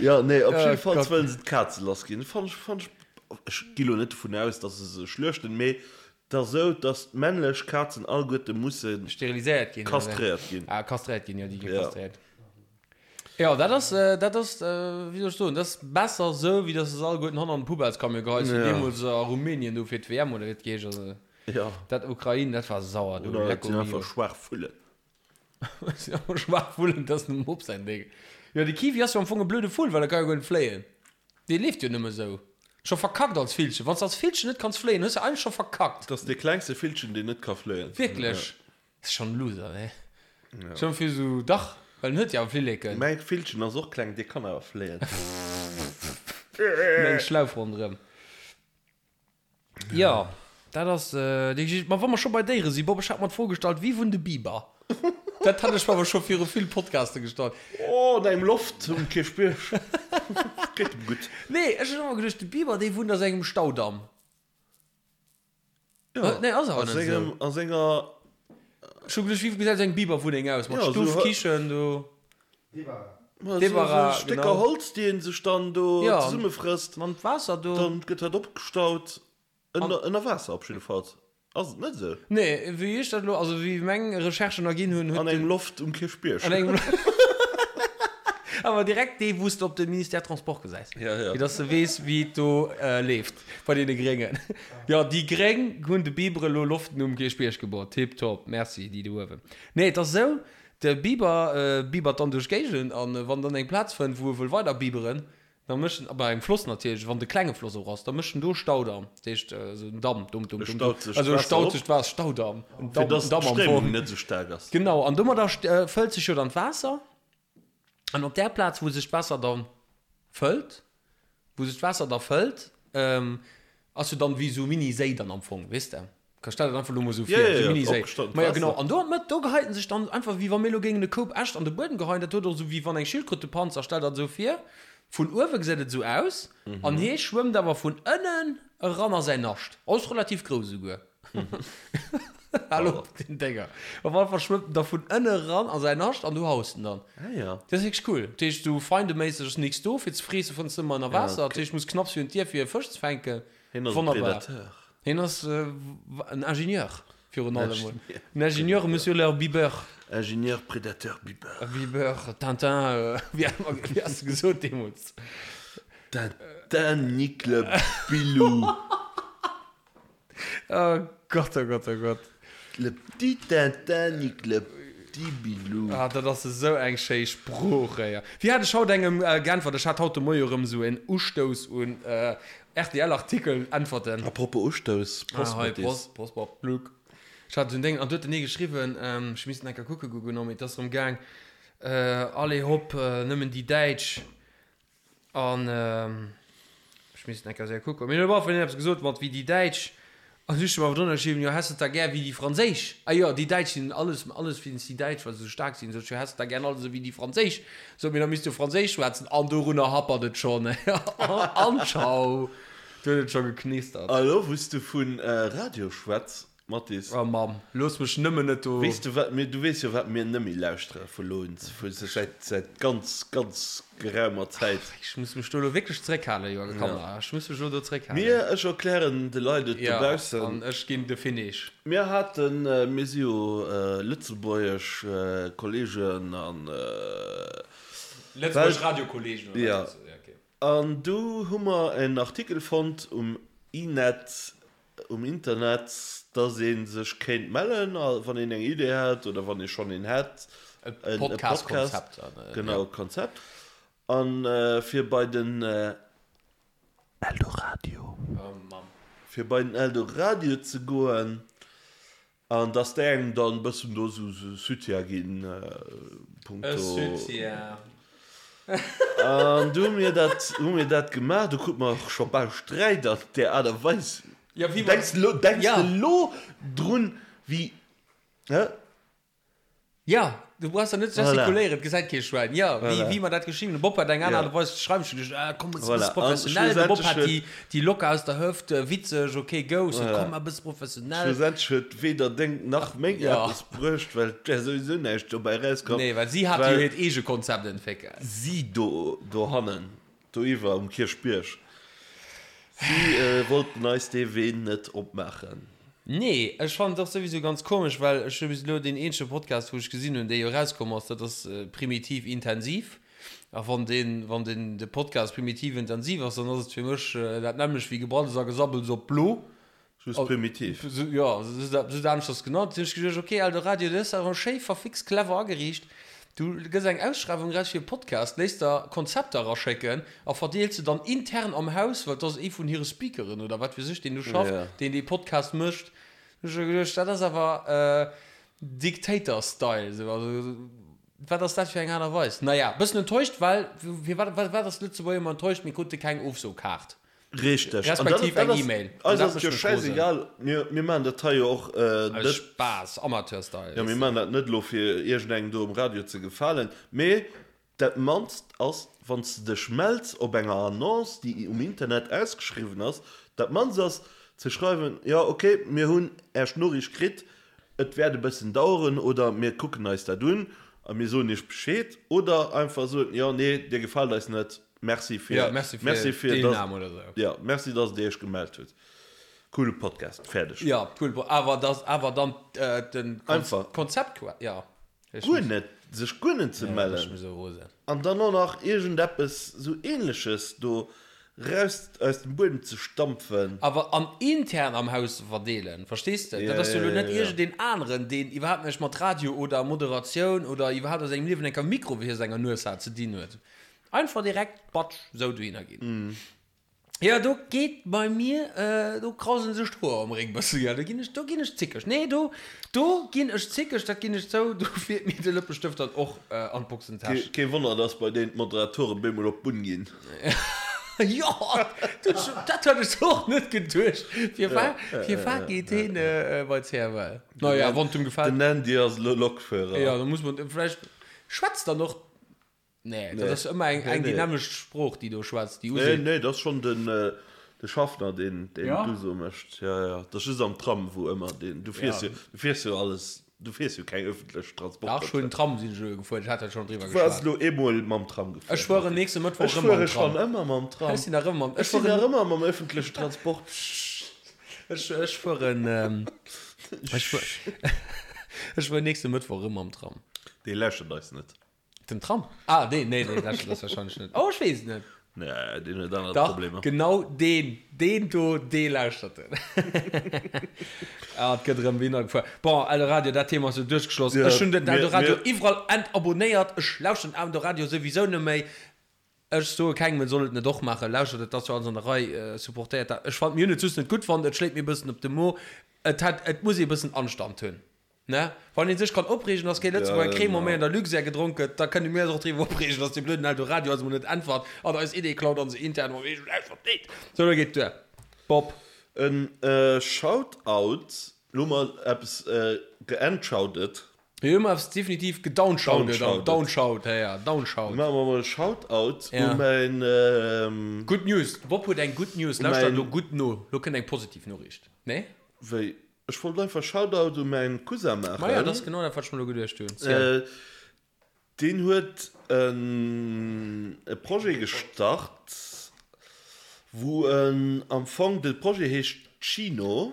Jo, nee, op Oh jiddefalls Gott. wëllen se d'Kaze lassginn. Fannt ech, fannt ech Ech gi lo net dovun aus, dass se se schluechten, mee et ass esou, dass d'männlech Kazen alleguerte musse Steriliséiert ginn, oder wéi? kastréiert ginn. Ah, kastréiert ginn, jo, déi gi Ja. kastréiert. Jo, dat ass, dat ass, wéi soll ech soen, dat ass besser esou, wéi dass se se alleguerten hanner an den Poubellescamion geheist hunn, Ja. deemools a Rumänien do fir d'WM oder wéi et geheescht ass. Ja. Dat Ukrain, dat war sauer do, Oder et lecko sinn mio. einfach schwaach Vullen. Et sinn einfach schwaach Vullen, dat ass dem Mob säin Déng. Jo, de Kiwi ass jo am Fong e blöde Vull, well e ka jo guer net fléien. Dee leeft jo nëmme sou. Scho verkackt als Villchen. Wanns de als Villchen net kanns fléien, hues de eigentlech scho verkackt. Dat ass dee klengste Villchen, deen net ka fléien. Wierklech? Ass schon en Loser, ne? Schon fir sou, dach, well en huet jo awer Flilleken. Mäi Villchen ass och kleng, dee kann awer fléien. Eng Schlauf ronderëm. Jo, dat ass déi Geschicht. Ma wa mer scho bei Déiere sinn, Bob, ech hat mer d'Fro gestallt, Wie wunnt e Biber? Dat hat ech mer awer scho viru vill Podcaste gestallt. Oh, an engem Loft um Kierchbierg. Geet em gutt. Nee, ech hunn ëmmer geduecht, de Biber, dee wunnt a sengem Staudamm. Jo, Nee, ass awer a net esou. sengem, a senger. Ech hu geduecht, wéi gesäit esou eng Biberwunneng aus? Mat Ja, Stuff, esou. Kichen, do. Ma esou, Débarras, esou Stécker genau. Holz, déi een sech dann do Ja, zesummefrësst. an d'Waasser do. Dann gëtt dat opgestaut. Ënner, ënner Waasser op jiddefalls. Ass et net esou? Nee, wéi ech dat elo, also wéi meng Recherchen erginn hunn, huet An engem Loft um Kierchbierg. An engem Awer direkt dee, wou s de op de Ministère Transport gesäis. Ja, ja. Fir dass de weess, wéi et do leeft bei deene Gréngen. Jo, déi Gréng hunn de Biber elo Loften um Kierchbierg gebaut. Tiptop, merci, déi do uewen. Nee, et ass esou, de Biber bibert dann duerch d'Géigend an wann en dann eng Plaz fënnt, wou e wëll weider biberen, Da mécht en, bei engem Floss natierlech, wann et e klenge Floss och ass, da mécht en do Staudamm, dat heescht esou en Damm, dum, dum, E dum, dum, staut sech also e d'Waasser staut op. sech d'Waasser, Staudamm, en Fir Damm, dass en Damm am d'Stréimung Fong. net esou staark ass. Genau, an domadder fëllt sech jo dann d'Waasser, an op där Plaz, wou sech d'Waasser da fëllt, wou sech d'Waasser da fëllt, ass jo dann wéi esou e Mini-Séi dann am Fong, weess de? Ka stell dat einfach lo mol sou vir, Ja, ja, sou ja, Mini-Séi. opgestaut Ma ja, Waasser. genau. An do an d'Mëtt, do geheit en sech dann einfach, wéi wa mir lo géingen e Koup Äscht an de Buedem geheien. Dat huet och sou wéi wann eng Schildkröt de Panzer, stell dat sou vir. Vun uewe gesäit et sou aus, an hee schwëmmt awer vun ënnen eran a säin Nascht. Ass relativ grouss esouguer. Hal op den Dénger. Op alle Fall schwëmmt en da vun ënne eran a säin Nascht an do haust en dann. Ah ja. Dat ass wierklech cool. Dat heescht, sou feindeméisseg ass nix do fir ze freesse, fënns de ëmmer ënner Waasser. Dat heescht, muss knapps virun d'Dier fir e Fësch ze fänken. Hien ass e Wonnerbar. Predateur. Hien ass en Ingenieur virun allem mol. En Ingenieur, Monsieur leur Bibeur. Ingenieur, Predateur, Bibeur. Bibeur, Tintin, wéi wéi has de gesot deemools? Tintin nique le Bilou. Oh Gott, oh Gott, oh Gott. Le petit Tintin nique le petit Bilou. Ah, dat ass esou eng schéi Sprooch, éier. Wéi hat ech haut engem geäntwert? Ech hat haut de Moie erëm esou en Ustouss un RTL-Artikel äntwerten. A propos Ustouss, Prost Ah, hei, Mattis. Prost, Prost, Bob, Luc. Ech hat esou en Déng, an du huet den ee geschriwwen, ech misst en enker kucke goen, genau, mee et ass erëm gaang, allez hopp, nëmmen déi Däitsch. An ech misst en enker séier kucken. Mee huet op alle Fall een eppes gesot mat wéi déi Däitsch. An du hues awer drënner geschriwwen, jo häss de da gär wéi déi Franséisch. Ah jo, déi Däitsch sinn alles, alles wéinst déi Däitsch, well se esou staark sinn. Sot ech, jo häss de da gär alles esou wéi déi Franséisch. Sot mir, da misst du Franséisch schwätzen. An dorunner happert et schonn. An tschau. Do huet et scho geknistert. A lo wou s du vu Radio schwätz. Mathis. Oh Mamm, looss mech nëmmen net do. Weess du wat mir, du weess jo wat mir nëmme lauschtere vu lo un, vu säit, säit ganz, ganz geraumer Zäit. Ach, ech muss mech do elo wierklech zeréckhalen, Joergen, komm, ech muss mech elo do zeréckhalen. Mir, ech erklären de Leit et dobaussen. Jo, an ech ginn de Finish. Mir haten, mir si jo lëtzebuergesch Kollegen an. Lëtzebuergesch Radiokollegen, oder wat? Jo. An du hu mer en Artikel fonnt um I-Net, um Internet, dass ee sech kéint mellen, wann een eng Idee hätt oder wann ee schonn een hätt, e Podcast-Konzept. Genau, Konzept. A fir bei den Eldoradio, fir bei den Eldoradio ze goen, An dass déi engem dann e bëssen do sou Soutien ginn punkto. E Soutien. An du hu mir dat, hu mir dat gemaach. Du krut mer och scho bal Sträit an där Aart a Weis. Ja, wéi mer. Denks de lo, denks de lo drun, wéi, hä? Jo, du brauchs der net ze gestikuléieren, et gesäit kee Schwäin. Jo, wéi, wéi mer dat geschriwwen hunn. De Bob hat eng aner Aart a Weis ze schreiwen. Ech hu geduecht, ah, komm, e bësse professionell. De Bob hat déi, déi locker aus der Hëft, witzeg, ok, go. Ech sot, komm, e bësse professionell. Schlussendlech huet weder deng nach meng eppes bruecht, well et wär souwisou näischt dobäi erauskomm. Nee, well si hat jo hiert eege Konzept entwéckelt. Si do, dohannen, doiwwer um Kierchbierg, si wollten eis dee Wee net opmaachen. Nee, ech fannen et och souwisou ganz komesch, well ech hu bis elo deen eenzege Podcast wou ech gesinn hunn, dee jo erauskomm ass, dat ass Primitiv Intensiv. A wann deen, wann den de Podcast Primitiv Intensiv ass, dann ass et fir mech dat nämmlecht wéi Gebraddels a Gesabbels op blo. Just primitiv. Jo, just aneschters genannt. Hunn ech geduecht, ok, Eldoradio, du hues dat awer schéi verfixt clever ageriicht. Du gëss eng Ausschreiwung eraus fir e Podcast, léiss der Konzepter eraschécken a verdeels se dann intern am Haus, well et ass ee vun hire Speakeren oder wat weess ech, deen do schafft, deen dee Podcast mécht. Hunn ech geduecht, dat ass awer Dictator-Style. Esou, also wat ass dat fir eng Aart a Weis? Naja, bëssen enttäuscht, well firwat, wat ass Lëtzebuerger ëmmer enttäuscht, mir krute keng Ofsokaart. Richteg. Respektiv eng E-Mail. Eis ass et jo schäisegal, mir maachen dat hei jo och net. Aus Spaass, Amateur-Style. Jo, mir maachen dat net elo fir iergendengem do um Radio ze gefalen, mee dat mannst ass, wann s de dech mells op enger Annonce, déi um Internet ausgeschriwwen ass, dat mannst ass ze schreiwen, jo ok, mir hunn Äech Noriicht kritt, et wäert e bëssen daueren oder mir kucken eis dat un a mir soen Iech Bescheed oder einfach soen, jo, nee, Dir gefaalt eis net. Merci fir, ja, merci fir, merci fir Deelnahme oder sou. Ja, merci, dass Dir Iech gemellt hutt. Coole Podcast, fäerdeg. Ja, cool, awer dass awer dann äh, den Einfach. Konzept, ja. Guer net, sech guer net ze mellen. An dann och nach iergendeppes sou Ähnleches do raus aus dem Buedem ze stampfen. Awer an intern am Haus ze verdeelen, verstees de? Dat ass jo elo net iergendeen aneren, deen iwwerhaapt näischt mat Radio oder Moderatioun oder iwwerhaapt a sengem Liewen enker Mikro vir senger Nues hat ze dinn huet. Einfach direkt batsch sou dohinner ginn. Jo do geet bei mir, do krausen sech d'Hoer am Réck bëssen, jo do ginn ech, do ginn ech zickeg. Nee do, do ginn ech zickeg, dat ginn ech zou, do fiert mir de Lëppestëft dann och an d'Boxentäsch. Kee Wonner dass bei deenen d'Moderatoren bemol op d'Bunn ginn. Jo, dat hat ech och net geduecht. Firwat, firwat geet heen bei CFL? Naja, wann et em gefält. Den Andy ass elo Lokführer. Jo, da muss man vläicht, schwätzt dann och Nee, dat ass ëmmer eng, eng déi nämmlecht Sprooch, déi do schwätzt, déi useet. Nee, nee, dat ass schonn den, de Schaffner, deen, deen d'Uso mécht. Ja, ja, dat ass just am Tram, wou ëmmer deen, du fiers jo, du fiers jo alles, du fiers jo keng ëffentlech Transporter. Dach, ech hunn Tram sinn ech elo gefuer, ech hat dat schonn driwwer Du waars geschwat. elo eemol mam Tram gefuer. Ech fueren nächste Mëttwoch Ech erëm mam fuere Tram. schonn ëmmer mam Tram. Ech sinn nach ëmmer mam, Ech ech sinn fueren. nach ëmmer mam ëffentlechen Transport. Ech, ech fueren, ech fuer, ech fueren nächste Mëttwoch erëm mam Tram. Dee lauschtert eis net. Den Tram? Ah, deen, nee, deen lauschtert eis wahrscheinlech net. Oh, ech weess et net. Nee, deen huet aner Dach, Problemer. genau deen, deen do, dee lauschtert en. Ah, et gëtt erëm Wiener gefuer. Bon, Eldoradio, dat Thema ass jo duerchgeschloss. Ja, Ech hunn den mir, Eldoradio mir. iwwerall entabonnéiert. Ech lauschteren Eldoradio souwisou net méi. Ech soe kengem, en soll et net och maachen. Lauschtert et, ass jo alles an der Rei, supportéiert dat. Ech fannen, mir hunn et just net gutt fonnt, et schléit mir e bëssen op de Mo. Et hätt, et muss ee bëssen Anstand hunn. Ne? Wann een sech kann opreegen, dass kee Lëtzebuerger Cremant méi an der Luxair gedronk gëtt, da kënne mir eis och driwwer opreegen, dass dee blöden Eldoradio eis emol net äntwert an eis Idee klaut an se intern mam eegenen Haus verdeelt. Sou, elo geet et duer. Bob. En Shoutout, lo hu mer eppes geentshoutet. Jo, hu mer eppes definitiv gedownshoutet an downshout, ja, ja, downshout. Maache mer emol e Shoutout u mäin. Good News, de Bob huet eng Good News, lauschtert elo gutt no, lo kënnt eng positiv Noriicht, nee? Wéi? Ech wollt einfach Shoutout u mäin Cousin maachen. Maja, dat ass genau dat, wat ech mer elo geduecht hunn. Ziel. Deen huet e Projet gestart, wou en am Fong, de Projet heescht Chino,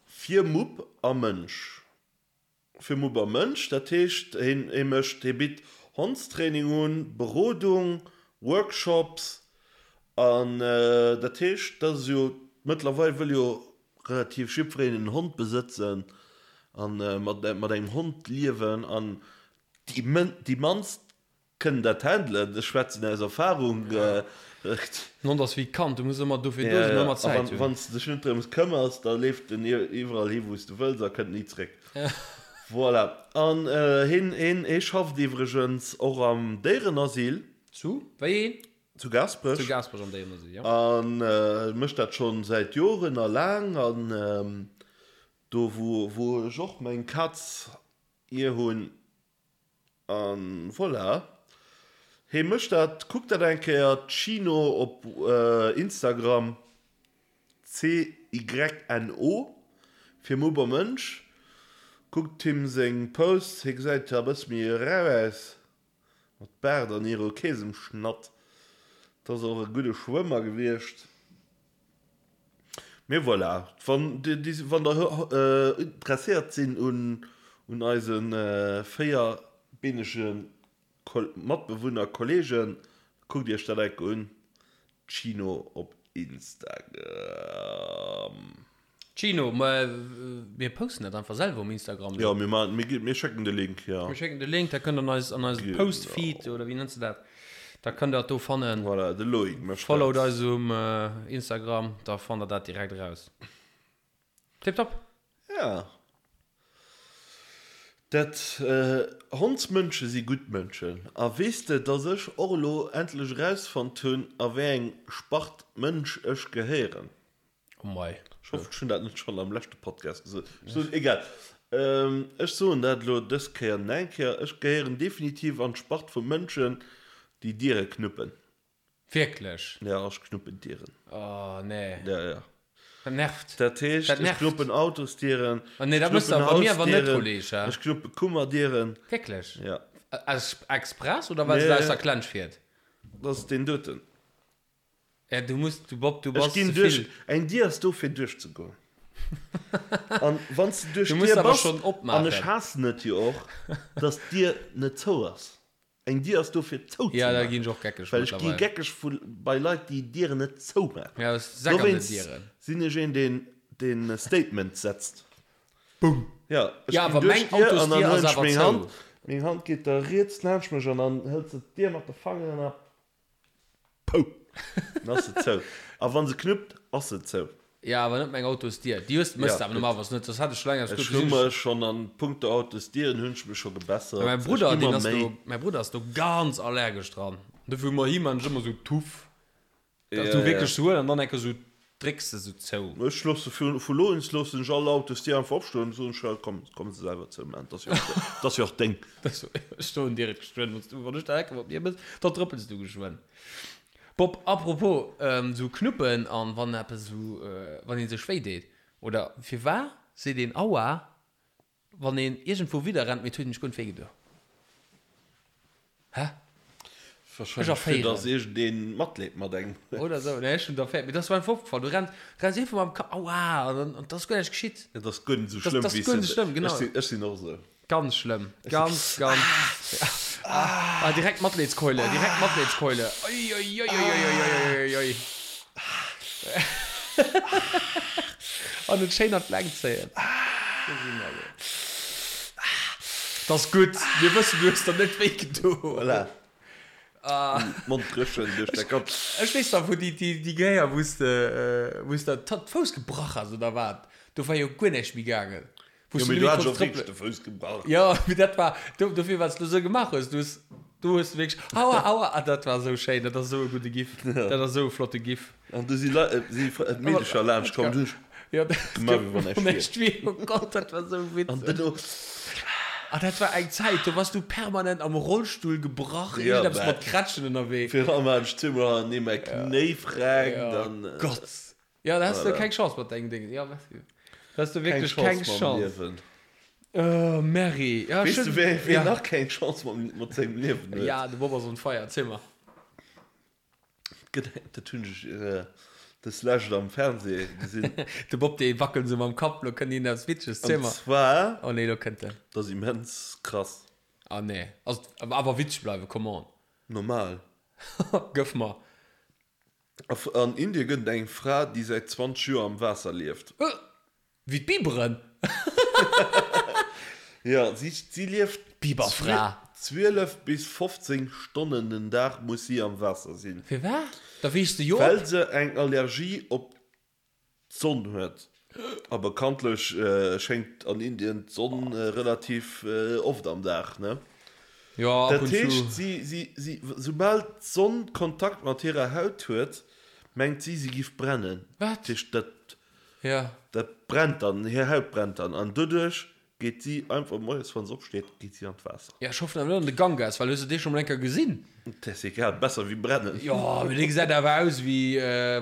fir Mupp a Mënsch. Fir Mupp a Mënsch, dat heescht, hien hie mécht, hie bitt Hondstraining un, Berodung, Workshops an dat heescht, dat ass jo, mëttlerweil wëll jo relativ jiddwereen en Hond besëtzen an mat mat engem Hond liewen an déi déi mannst Kënnen dat handelen, ech schwätzen aus Erfahrung. Den Hond ass wéi d'Kand, du muss ëmmer dofir do sinn an ëmmer Zäit hunn. Wann s de dech net drëms këmmers, da leeft en iwwerall hi wou s de wëlls a kënnt ni zréck. Voilà. An hien, hien, hie schafft iwwregens och am Déierenasyl. Zu wéi een? Zu Gaasperech. Zu Gaasperech am Déierenasyl, jo. A mécht dat schonn säit Joren a laang. An do wou, wou ech och meng Kaz hier hunn. An voilà, hee mécht dat. Kuckt dat eng Kéier, Cyno op Instagram, C-Y-N-O fir Mupp a Mënsch. Kuckt him seng Posts, hie gesäit e bësse méi rau aus, mat Baart an Irokesemschnatt. 't ass och e gudde Schwëmmer gewiescht. Mee voilà, wann der interesséiert sinn un eise véierbeenege Matbewunner, Kollegen, kuckt iech dat enke un, Chino op Instagram. Chino, ma mir posten dat einfach selwer um Instagram. Jo, mir maachen, mir mir schécken de Link, jo. Mir schécken de Link, da kënnt der an eis, an eise Post-Feed, oder wéi nenns de dat? Da kënnt der dat do fannen. Voilà, de Loïc mécht dat. Followt eis um Instagram, da fannt der dat direkt eraus. Tiptop! Ja. Dat, Hondsmënsche si gutt Mënschen. A weess de, dass ech och elo endlech erausfonnt hunn, a wéi eng Spart Mënsch ech gehéieren? Oh mei. Ech hoffen, ech hunn dat net schonn am leschte Podcast gesot. Ech soen, egal. Ech soen dat elo dës Kéier nach eng Kéier, Ech gehéieren definitiv an d'Spart vu Mënschen, déi Diere knuppen. Wierklech? Ja, ech knuppen Dieren. Oh, nee. Ja, ja. Dat nervt. Dat heescht, ech knuppen Autosdieren, Oh nee, dat ech mëss de knuppen bei mir awer net, Hausdieren, Kolleg, hä? ech knuppe Kummerdieren. Wierklech? Ja. Aus express oder well se der Nee. aus der Klensch fiert? Dat ass deen doten. Ja, du muss, du Bob, du Ech bass ginn ze duerch, vill. eng Dier ass do fir duerchzegoen. An wann s de duerch Du muss d'Dier awer bass, schonn an opmaachen. ech haassen et jo och, dass d'Dier net zou ass. Eng Dier ass do fir zou ze Ja, da ginn maachen. ech och geckeg Well ech gi mëttlerweil. geckeg vu bei Leit déi Dieren net zou maachen. Ja, ech säck an den Dowéinst Dieren. sinn ech een deen deen Statements setzt. Boom! Ja, ech Ja, ginn awer duerch meng d'Dier an dann Autosdier ass huelen ech awer meng zou. Hand, meng Hand geet da riets laanscht mech an dann hëlt se d'Dier mat de Fangeren a Pou! Dann ass se zou. A wann se knuppt, ass se zou. Ja, awer net meng Autosdier. Déi hues, mëss de awer normalerweis net, soss hätt ech scho laang eppes Ech gutt hu gesinn. mech schonn an punkto Autosdieren hunn ech mech scho gebessert. Mäi Ech Brudder, gi deen mer ass do, Méi. mäi Brudder ass do ganz allergesch dran. Dofir hu mer him an ech ëmmer sou Tuff, dass Ja, du ja. wierklech sou huel an dann enke sou drécks de sou zou. Ech loosse vu vu lo un loossen ech all Autosdier einfach opstoen, soen ech, komm, komm se selwer zou maachen, 't ass jo och, 't ass jo och deng. Ech stoen direkt geschwënn, wann s du, wann ech der Hecke mat mir mëss, da trëppels du geschwënn. Bob, apropos sou Knuppen an wann eppes sou, wann een sech wéi deet, oder firwar seet een Aua wann een iergendwou widder rennt, mee et huet een sech guer net wéi gedo? Hä? Ech Wahrscheinlech fir erféieren. dass iergendeen Matleed mat engem huet. Oder sou, nee ech hunn et erféiert, mee dat ass mer einfach opgefall, du renns, renns iergendwou mam Ka, Aua, an dann, an et ass guer näischt geschitt. Et ass guer net sou Dat schlëmm ass wéi s guer de net sou schlëmm, genau. Ech sinn, ech sinn och sou. Ganz schlëmm, ganz, ganz. Ah, direkt Matleedskeule, direkt Matleedskeule. Oi, oi, oi, oi, oi, oi, oi, oi. An et schéin an d'Längt zéien. Dat ass gutt, mir wëssen, du hues der net wéi gedo. Voilà. Mond dréchen duerch däi Kapp. Ech weess nach, wou déi, déi, déi Kéier, wou s de, wou s de d'Fouss gebrach has oder wat, do war jo guer näischt méi gaangen. Jo, mee du hat jo wierklech de Fouss gebrach. Jo, mee dat war, dofir wat s du esou gemaach hues, du hues, du hues wierklech, aua, aua, ah, dat war esou schéin, dat ass esou e gudde Gif, dat ass esou e flotte Gif. An du si Leit, si Meedecher laanscht komm, du hues Jo, dat gemaach wéi wann näischt wier. Näischt wier, oh Gott, dat war esou witzeg. An duerno. Ah, dat war eng Zäit, do wars du permanent am Rollstull gebrach, iergendeppes mat Krätschen ënnerwee. Virun allem hat ech zweemol hannertenee mäi Knéi freckt an. Gott. Jo, da has de keng Chance mat dengem Ding. Jo, merci. Hues du wierklech keng Chance. Oh, Merri. Ja, Weess du, wee, wee nach keng Chance mat, mat sengem Liewen huet? Ja, de Bob ass on fire. Erziel mer. Gëtt, dat hunn ech dës Lescht am Fernseh gesinn. De Bob, dee wackelt esou mam Kapp, lo kënnt een eppes Witzeges. Erziel mer. An zwar. Oh nee, lo kënnt en. Dat ass immens krass. Ah nee. Ass, awer witzeg bleiwen, come on. Normal. Gëff mer. An Indie gëtt et eng Fra, déi säit 20 Joer am Waasser lieft. Wéi d'Biberen? Jo, si, si lieft. D'Biberfra. 12 bis 15 Stonnen den Dag muss si am Waasser sinn. Firwat? Da weess de jo op. Well se eng Allergie op d'Sonn huet. A bekanntlech schéngt an Indien d'Sonn relativ oft am Dag, ne? Jo, ab Dat und zu. heescht, si, si, si, soubal d'Sonn Kontakt mat hirer Haut huet, mengt si, si giff brennen. Wat? Dat heescht, dat, Ja. dat brennt dann, hir Haut brennt dann. An doduerch Geet si einfach moies wann se opsteet geet si an d'Waasser. Ja ech hoffen awer net an de Ganges, well hues de dee scho mol eng Kéier gesinn? Et ass egal, besser wéi brennen. Jo, mee dee gesäit awer aus wéi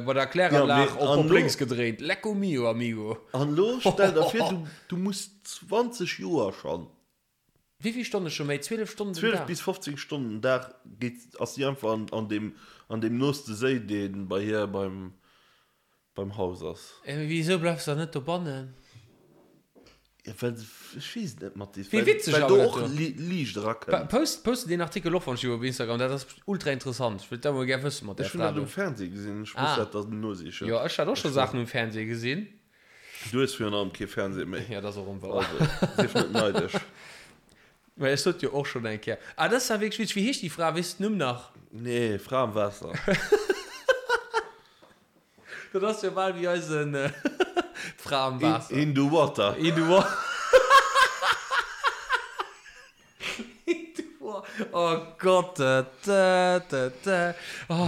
bei der Kläranlag op op lénks gedréint. Lecco mio amigo. An lo stell der vir du du muss 20 Joer schonn. Wéi vill Stonne scho méi? 12 Stonnen den 12 Dag? bis 15 Stonnen den Dag geet ass si einfach an an deem an deem nooste Séi dee bei hir beim beim Haus ass. Mee wisou bleifs de dann net dobannen? Ja, well, ech weess et net, Mathis, Wéi well, witzeg well awer do dat och do. Li Liicht erakënnt. Post, poste deen Artikel och wann ech op Instagram, dat ass ultra interessant. Ech wëllt dat mol gär wëssen mat där Ech hunn dat Fra um do. Fernseh gesinn, ech muss Ah. dat dann nosichen. Jo, ech hat och scho Saachen um Fernseh gesinn. Du hues virun allem kee Fernseh méi. Ja, dat ass och onwouer. Also, sief net neidesch. Mä ech sot jo och schonn eng Kéier. Ah, dat ass ja wierklech witzeg. Wéi heescht déi Fra? Weess de den Numm nach? Nee, Fra am Waasser. Dat ass jo bal wéi eisen D'Fra am Waasser. In the water. In the water. In the water. Oh Gott. Oh,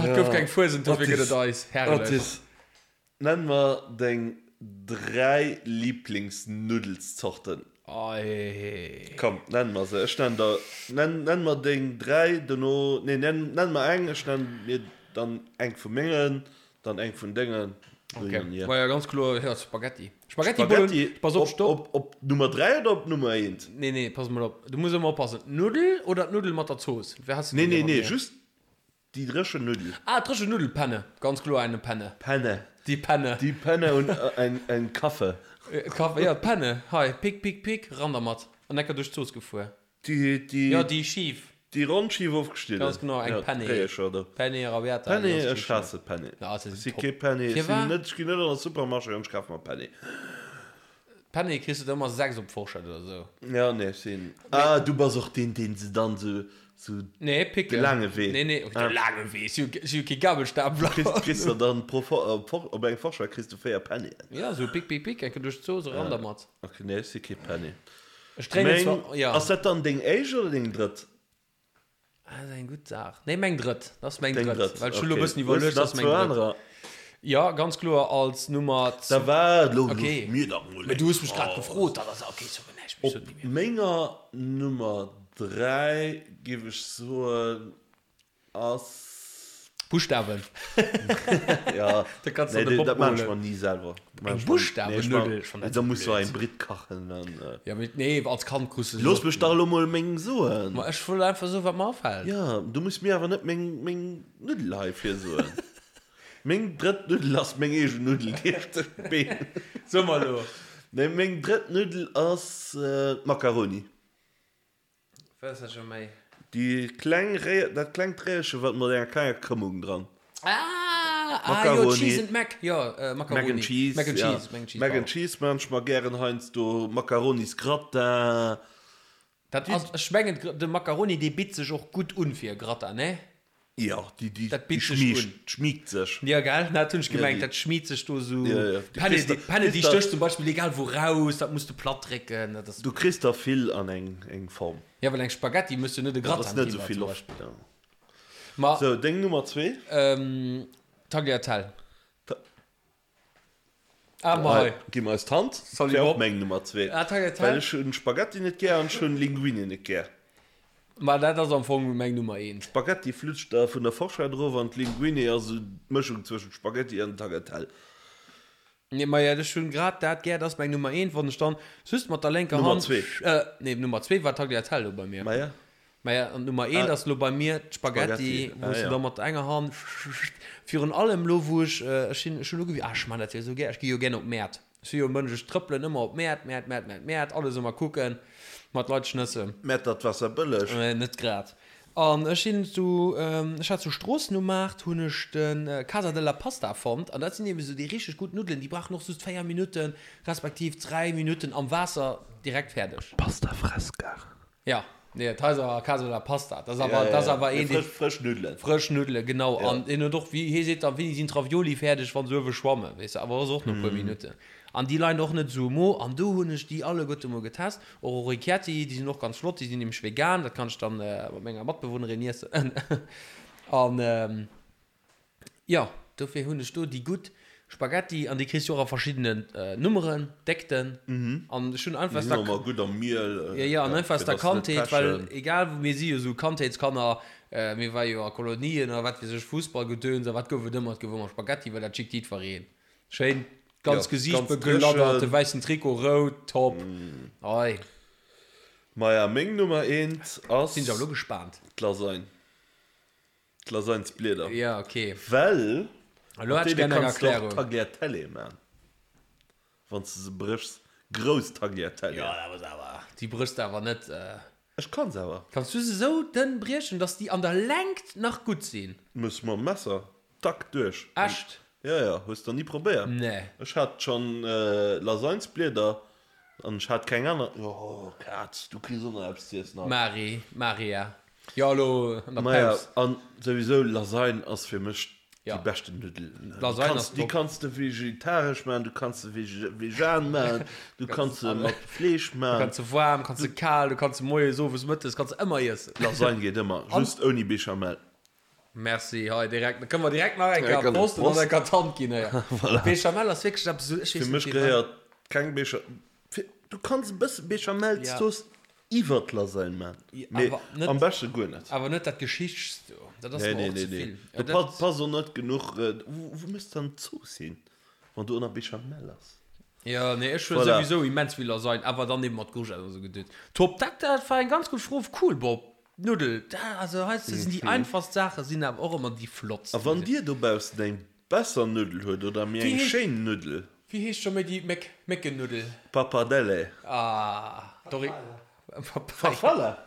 et gouf keng Fuesent, dofir gëtt et eis. Herrlech. Otis, nenn mer deng 3 Lieblingsnuddelszorten. Ei. Komm, nenn mer se. Ech nenn der, nenn, nenn mer deng 3, dono, nee, nenn, nenn mer eng, ech nenn mir dann eng vu mengen, Dann eng vun dengen. Okay. Ma ja, ganz kloer, ja, Spaghetti. Spaghetti, Spaghetti pass op, stopp. Op, op Nummer 3 oder op Nummer 1? Nee, nee, pass mol op. Du muss ëmmer oppassen. D'Nuddel oder d'Nuddel mat der Zooss? Wéi has du Nee, déi nee, nee, mat mir? just déi dréchen Nuddel. Ah, dréchen Nuddel, Penne. Ganz kloer eine Penne. Penne. Die Penne. Die Penne und ein, ein Kaffe. Kaffe, ja, d'Penne. Hei, pick, pick, pick, ran dermat. An enker duerch d'Zooss gefuer. Déi, déi. Jo, déi Schief. Déi ronn Schief ofgeschnidden. Ganz genau, eng Penne. D'Réiecher do. Penne arrabbiata. Penne, ech haasse Penne. Ja, se Ech sinn si top. kee Penne. Ech sinn Firwat? net, ech ginn net an de Supermarché an ech kafe mer Penne. Penne kriss de der ëmmer 6 op d'Forschett oder sou. Ja, nee, ech sinn. Ah, du bass och deen, deen se dann sou, sou. Nee, picken. De laange Wee. Nee, nee, de laange Wee. Ech si jo kee Gabelstapler. Kriss, kriss der dann pro For, op, op eng Forschett kriss de 4 Pennien. Ja, sou pick, pick, pick, eng Kéier duerch d'Zooss, eran dermat. Ok, nee, ech si kee Penne. Ech dréinen Meng, zwar, ja. ass dat dann deng éischt oder deng drëtt? Ah, dat ass eng gutt Saach. Nee, meng drëtt. Dat ass meng Deng drëtt. drëtt, Well ech hunn elo e okay. bëssen Hues iwwerluecht, du dat nach ass meng zwou drëtt. anerer? Ja, ganz kloer als Nummer Da waart, elo Okay. looss mir dach mol Mee du hues mech grad eng gefrot, dat ass, okay, so näischt méi, so Op ni méi. menger Nummer 3 géif ech soen, Ass. Buschtawen. Ja, Da kannst du nee, an de dat Bob dat maan ech holen. mer ni selwer. Eng Buschtawennuddel? Ech fannen dat Da sou muss du blöd. eng Britt kachen an. Ja, mee nee, als Kand krus du se Looss och mech dach elo mol meng soen. Ma ech wëll einfach soen, wat mer afält. Ja, du muss mir awer net meng meng Nuddel hei virsoen. Meng drëtt Nuddel ass meng eegen Nuddel, déi ech tëscht d'Been. So mer elo. Nee, meng drëtt Nuddel ass d'Macaroni. Wat ass dat scho méi? Déi kleng Réier, dat klengt Réierche wat mat enger klenger Krëmmung dran. Ah, ah jo, Cheese and Mac, jo, Macaroni. Mac and Cheese, Mac and ja. Cheese, Mac and Cheese, Mac and pardon. Cheese maan ech mer gären heiansdo, Macaronisgratin. Dat ass, ech mengen, de Macaroni, dee bitt sech och gutt un fir e Gratin, ne? Jo, déi, déi, Dat déi bitt sech schmiegt, un. schmiegt sech. Jo, gell, dat hunn ech Ja, gemengt, déi. dat schmiet sech do sou. Ja, ja. Du Penne, kriss déi, der, Penne, déi kriss der, stécht zum Beispill egal wou raus, dat muss de platt drécken, dat ass. du kriss der vill an eng, eng Form. Ja, well eng Spaghetti muss jo net e Dat ass Gratin net ginn, esou war vill zum Loft. Beispill. Ja. Ma, Sou, deng Nummer zwee? ähm, Tagliatelle. Ta Ah, ma hei. Gi mer eis d'Hand. Salut, Wär och Bob. meng Nummer zwee. Ah, Tagliatelle. Well ech hunn Spaghetti net gär an ech hunn Linguine net gär. Ma dat ass am Fong meng Nummer eent. Spaghetti flutscht der vun der Forschett erof an d'Linguine ass esou d'Mëschung zwëschent Spaghetti an Tagliatelle. Nee, maja, ech hunn grad dat gär, dat ass meng Nummer eent, wann ech dann just mat der lénker Nummer Hand, zwee. nee, Nummer zwee war Tagliatelle lo bei mir. Maja. Maja, an d'Nummer eent ass lo bei mir d'Spaghetti, Spaghetti, wou ah s du ja. da mat enger Hand, virun allem lo wou ech, ech sinn, ech hunn ugewi, ah ech man dat jo esou gär, ech gi jo gär op d'Mäert, ech si jo e Mënsch, ech trëppelen ëmmer op d'Mäert, Mäert, Mäert, Mäert, Mäert, alles ëmmer kucken, mat Leit schnëssen. Mäertert Waasserbëlleg. Net grad. An ech sinn zu, ech hat zu Stroossen um Maart, hunn ech de Casa della Pasta fonnt. An dat sinn eben esou déi richteg gutt Nuddelen, déi brauchen och just 4 Minutten, respektiv 3 Minutten am Waasser, direkt fäerdeg. Pasta fresca. Ja, nee, dat heist awer Casa della Pasta. Dat ass awer, dat ass awer een, dee. Frësch Nuddelen. Frësch Nuddelen, genau. An deen huet och, wéi hie seet dann, wéini sinn d'Ravioli fäerdeg, wa se uewe schwammen, weess de, awer ass och no e puer Minutten. An déi leien och net esou um Mo. An do hunn ech déi alleguerte mol getest. Och Orecchietti, déi sinn och ganz flott, déi sinn nämlech vegan, dat kann ech dann mat menger Matbewunnerin iessen. An jo, dofir hunn ech do déi gutt Spaghetti an déi kriss du och a verschiddenen Nummeren, Déckten. An ech hunn einfach Déi aus sinn der och ëmmer gutt am Miel, Jo, jo, an einfach aus fir der dass se net Kandheet, well pechen. egal wou, mir si jo esou Kandheetskanner, mir ware jo a Kolonien a wat weess ech, Fussballgedöns a wat gouf et ëmmer, et gouf ëmmer Spaghetti, well dat schickt jiddwereen. Schéin ganz Ja, Gesiicht ganz begladdert, de dréchen. wäissen Trikot rout, top. Ei. Maja, meng Nummer eent ass. Sinn ech awer elo gespaant. D'Lasagne. D'Lasagnesblieder. Ja, ok. Well Elo mat hätt ech deene gär eng kanns de och Erklärung. Tagliatelle man, wann s de se bréchs. Grouss Tagliatelle. Jo, dat ass awer, déi bréchs de awer net. Ech kann se awer. Kanns du se sou dënn briechen, dass déi an der Längt nach gutt sinn? Muss mam Messer, tack, duerch. Echt? Jo, jo, hues der ni probéiert? Nee. Ech hat schon Lasagnesblieder an ech hat keng aner. Oh Kaz, du kriss och nach eppes z'iessen haut. Mari, Maria, jo elo an der Maja, Paus. an souwisou Lasagne ass fir mech Ja. Déi beschten Nuddelen. Lasagne ass Déi top. kanns de vegetaresch maachen, du kanns se vegan maachen, du kanns se mat Fleesch Du maachen. kanns se waarm, kanns se kal, du kanns se moies, owes, mëttes, kanns se ëmmer iessen. Lasagne geet ëmmer, just ouni Béchamel. Merci, hei direkt, da kënne mer direkt nach eng Ja, Kéier kann Prost an Prost. dann eng Kéier d'Hand ginn hei. Voilà. Béchamel ass wierklech eppes esou, ech weess Fir net mech firwat. gehéiert keng Béchamel, du kanns e bësse Béchamelszooss Iwwert Lasagne man, mee am beschte guer net. Awer net dat Geschichts do, dat ass mer och ze vill. Do passt och net genuch, wou méchs de dann d'Zooss hin, wann do ënner Béchamel ass? Jo, nee, ech huelen souwisou immens vill Lasagne, awer dann eben mat Courgette an esou Gedöns. Top, dat dat war eng ganz gutt Fro, cool Bob, Nuddel, dat also heiansdo sinn déi einfachst Saache sinn awer och ëmmer déi flottst. A wann dir dobaussen eng Besser Nuddel huet oder méi eng schéin Nuddel. Wéi heescht scho méi déi Méck, Méckennuddel? Pappardelle. Ah, Dori. Farfalla?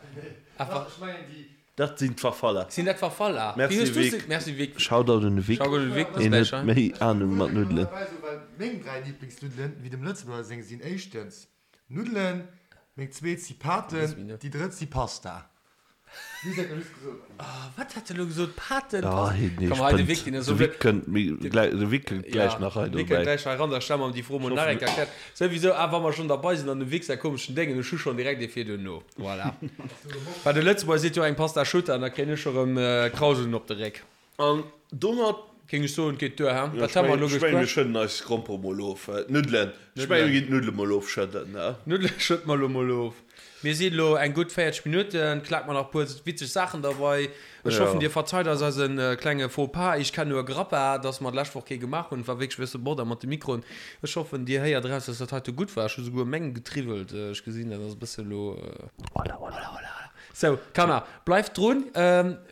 Dat sinn d'Farfalla. Sinn dat Farfalla? Merci Vic. Merci Vic. Shoutout un de Vic. Shoutout un de Vic, Hien huet méi Ahnung mat Nuddelen. Meng 3 Lieblingsnuddelen, wéi dem Lëtzebuerger seng, sinn éischtens Nuddelen, meng zweet si Paten, déi drëtt si Pasta. Wat hat de lo gesot? Paten? Ah, Pasta? nee, Komm, hei, de Vic, deen ass De esou Vic kënnt méi gläich, de Vic kënnt gläich nach hei Ja, de Vic kënnt dobäi. gläich hei ran, da stelle mer em déi Fro mol nach eng Kéier erkläert. Souwisou, ah, wa mer schonn derbei sinn an dem Vic säi komeschen Déngen, ech hu schonn direkt ee fir duerno. Voilà. Well de Lëtzebuerger seet jo eng Pasta asciutta an da kréien ech scho rëm Krauseln op de Réck. An domat Géing ech soen, geet duer, he? Ja, Wat hu mer elo ech mengen, mir geschwat? schëdden eis Grompere mol of. D'Nuddelen. Ech mengen, mir ginn d'Nuddele mol ofschëdden, he? D'Nuddele schëdde mer elo mol of. Mir sinn elo eng gutt 40 Minutten. Klak mer nach e puer witzeg Saachen derbei. Ech Ja. hoffen, dir verzeit eis eise klenge Faux pas. Ich kenn nur Grappa, dass mer d'lescht Woch kee gemaach hunn. Et war wierklech e bësse Bordell mat de Mikroen. Ech hoffen, dir héiert eraus, dass dat heite gutt war. Ech hu souguer meng getriwwelt. Ech gesinn, dat ass e bësse elo. Hola, hola, hola. Sou, Kanner, bleift drun.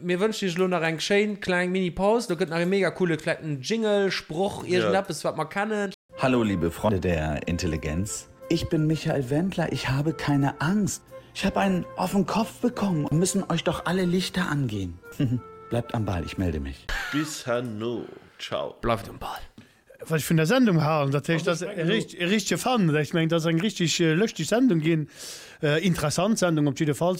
Mir wënschen iech elo nach eng schéin kleng Mini-Paus. Do gëtt nach e mega coole klengen Jingle, Sproch, iergendeppes, wat mer kennen. Hallo liebe Freunde der Intelligenz. Ich bin Michael Wendler, ich habe keine Angst. Ich habe einen auf den Kopf bekommen, müssen euch doch alle Lichter angehen. Bleibt am Ball, ich melde mich. Bis herno, ciao. Bleift um Ball. Wat ech vun der Sendung halen, dat heescht, dat ass e richtege Fan. Ech mengen, dat ass eng richteg lëschteg Sendung ginn, interessant Sendung op jiddefalls.